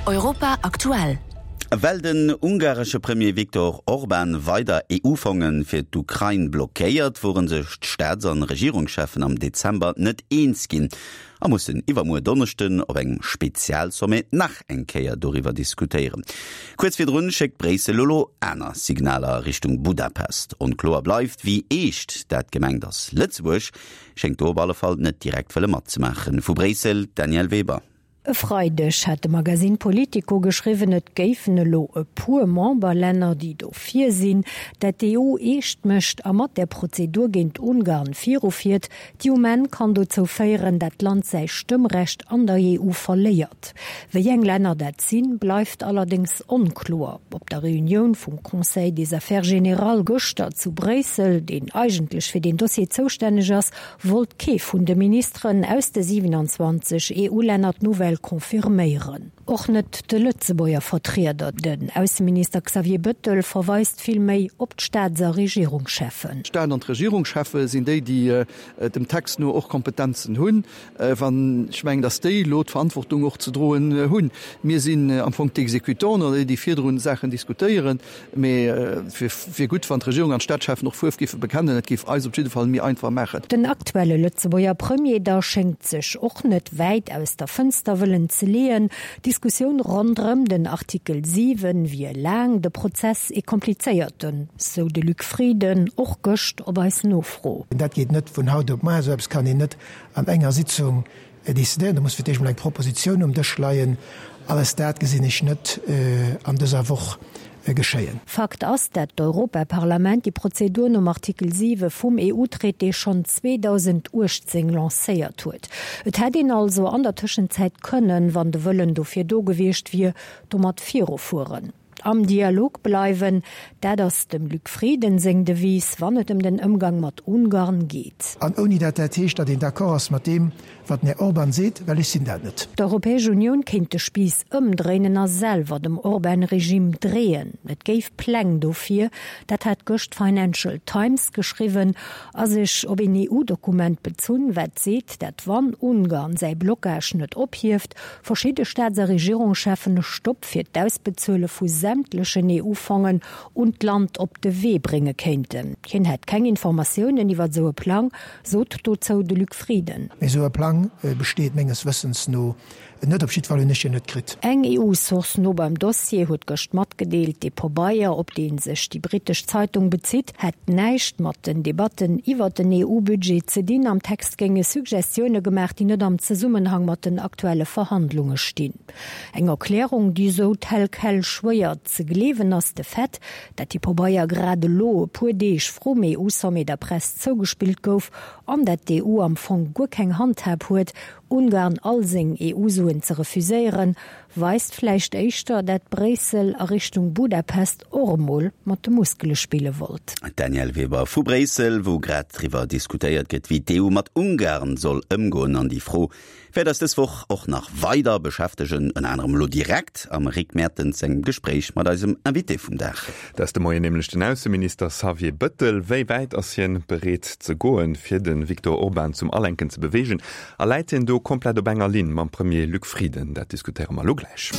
Europa aktuell. Well den ungaresche Premier Viktor Orban weider EU-Fonge fir d'Ukrain blockéiert, wore sech d'Staats an Regierungscheffen am Dezember net eens ginn a mussen iwwermuer Donneschden op engem Spezialsommet nach eng Kéier doriwwer diskutéieren. Kuerz virdrun schéckt Bréissel elo aner Signaler a Richtung Budapest. Onkloer bleift, wéi eescht dat gemengt ass. Lëtzebuerg schéngt do op alle Fall net direkt wëlle matzemaachen. Vu Bréissel, d'Danièle Weber. E Freideg hat de Magasinn Politico geschriwwen, et géifen elo e puer Memberlänner, déi dofir sinn, dat d'EU eescht mécht a mat där Prozedur géint Ungarn virufiert, déi um Enn kann dozou féieren, dat d'Land säi Stëmmrecht an der EU verléiert. Wéi eng Länner dat sinn, bleift allerdéngs onkloer. Op der Reunioun vum Conseil des Affaires générales gëschter zu Bréissel, deen eigentlech fir deen Dossier zoustänneg ass, wollt kee vun de Ministeren aus de 27 EU-Länner d'Nouvelle confirméieren. Och net de Lëtzebuerger Vertrieder, den Ausseminister Xavier Bëttel, verweist vill méi op d'Staats a Regierungscheffen. D'Staat an d'Regierungscheffe sinn déi, déi dem Text no och Kompetenzen hunn. Wann ech mengen, datt déi elo d'Verantwortung och ze droen hunn. Mir sinn am Fong d'Exécutanten oder déi, déi virdrun Saachen diskutéieren. Mee et wier gutt, wann d'Regierung an d'Staatscheffen och Fuerf géife bekennen. Et géif eis op jidde Fall méi einfach maachen. Den aktuelle Lëtzebuerger Premier da schéngt sech och net wäit aus der Fënster wëllen ze leeën. D'Diskussioun ronderëm den Artikel 7 wier laang, de Prozess ee komplizéierten, sou de Luc Frieden och gëscht op eis Nofro. Dat geet net vun haut op muar. Esou eppes kann een net an enger Sitzung Décidéieren. Do muss fir d'éischt emol eng Propositioun um Dësch leien. Alles dat gesinn ech net an dëser Woch geschéien. Fakt ass, dat d'Europaparlament déi Prozedur nom Artikel 7 vum EU-Traité schonn 2018 lancéiert huet. Et hätt een also an der Tëschenzäit kënnen, wann de Wëllen dofir do gewiescht wier, domat virufueren. Am Dialog bleiwen, dat ass dem Luc Frieden seng Devise, wann et ëm den Ëmgang mat Ungarn geet. An ouni dat dat heescht, datt een d'accord ass mat deem, wat den Här Orban seet, well ech sinn dat net. D'Europäesch Unioun kéint de Spiiss ëmdréinen a selwer dem Orban-Regime dreeën. Et géif Pläng dofir, dat hat gëscht d'Financial Times geschriwwen a sech op een EU-Dokument bezunn, wat seet, dat wann Ungarn säi Blockage net ophieft, verschidde Staats a Regierungscheffen e Stopp fir d'Ausbezuele vu sämtlechen EU-Fongen un d'Land op de Wee brénge kéinten. Hien hätt keng Informatiounen iwwer esou e Plang, sot dozou de Luc Frieden. Mee esou e Plang besteet menges Wëssens no net. Op jiddwer Fall hunn ech en net kritt. Eng EU-Source no beim Dossier huet gëscht matgedeelt, dee Pobeier, op dee sech déi brittesch Zeitung bezitt, hätt näischt mat den Debatten iwwer den EU-Budget ze dinn. Am Text géinge Suggestioune gemaach, déi net am Zesummenhang mat den aktuelle Verhandlunge stinn. Eng Erklärung, déi esou tel quel schwéier ze gleewen ass. De Fait, dat dee Pobeier grad elo, e puer Deeg vrum EU-Sommet, der Press zougespillt gouf an dat d'EU am Fong guer keng Handhab huet, Ungarn all seng EU-Suen ze refuséieren, weist vläicht éischter, dat Bréissel a Richtung Budapest och emol mat de Muskele spille wollt. D'Danièle Weber vu Bréissel, wou grad driwwer diskutéiert gëtt, wéi d'EU mat Ungarn soll ëmgoen. An déi Fro wäert eis dës Woch och nach weider beschäftegen, ënner anerem elo direkt am Rick Mertens sengem Gespréich mat eisem Invité vum Dag. Dat ass de Moien nämlech den Ausseminister Xavier Bëttel. Wéi wäit ass hien bereet ze goen, fir de Viktor Orban zum Alenken ze beweegen? A läit hien do komplett op enger Linn mam Premier Luc Frieden? Dat diskutéiere mer elo gläich.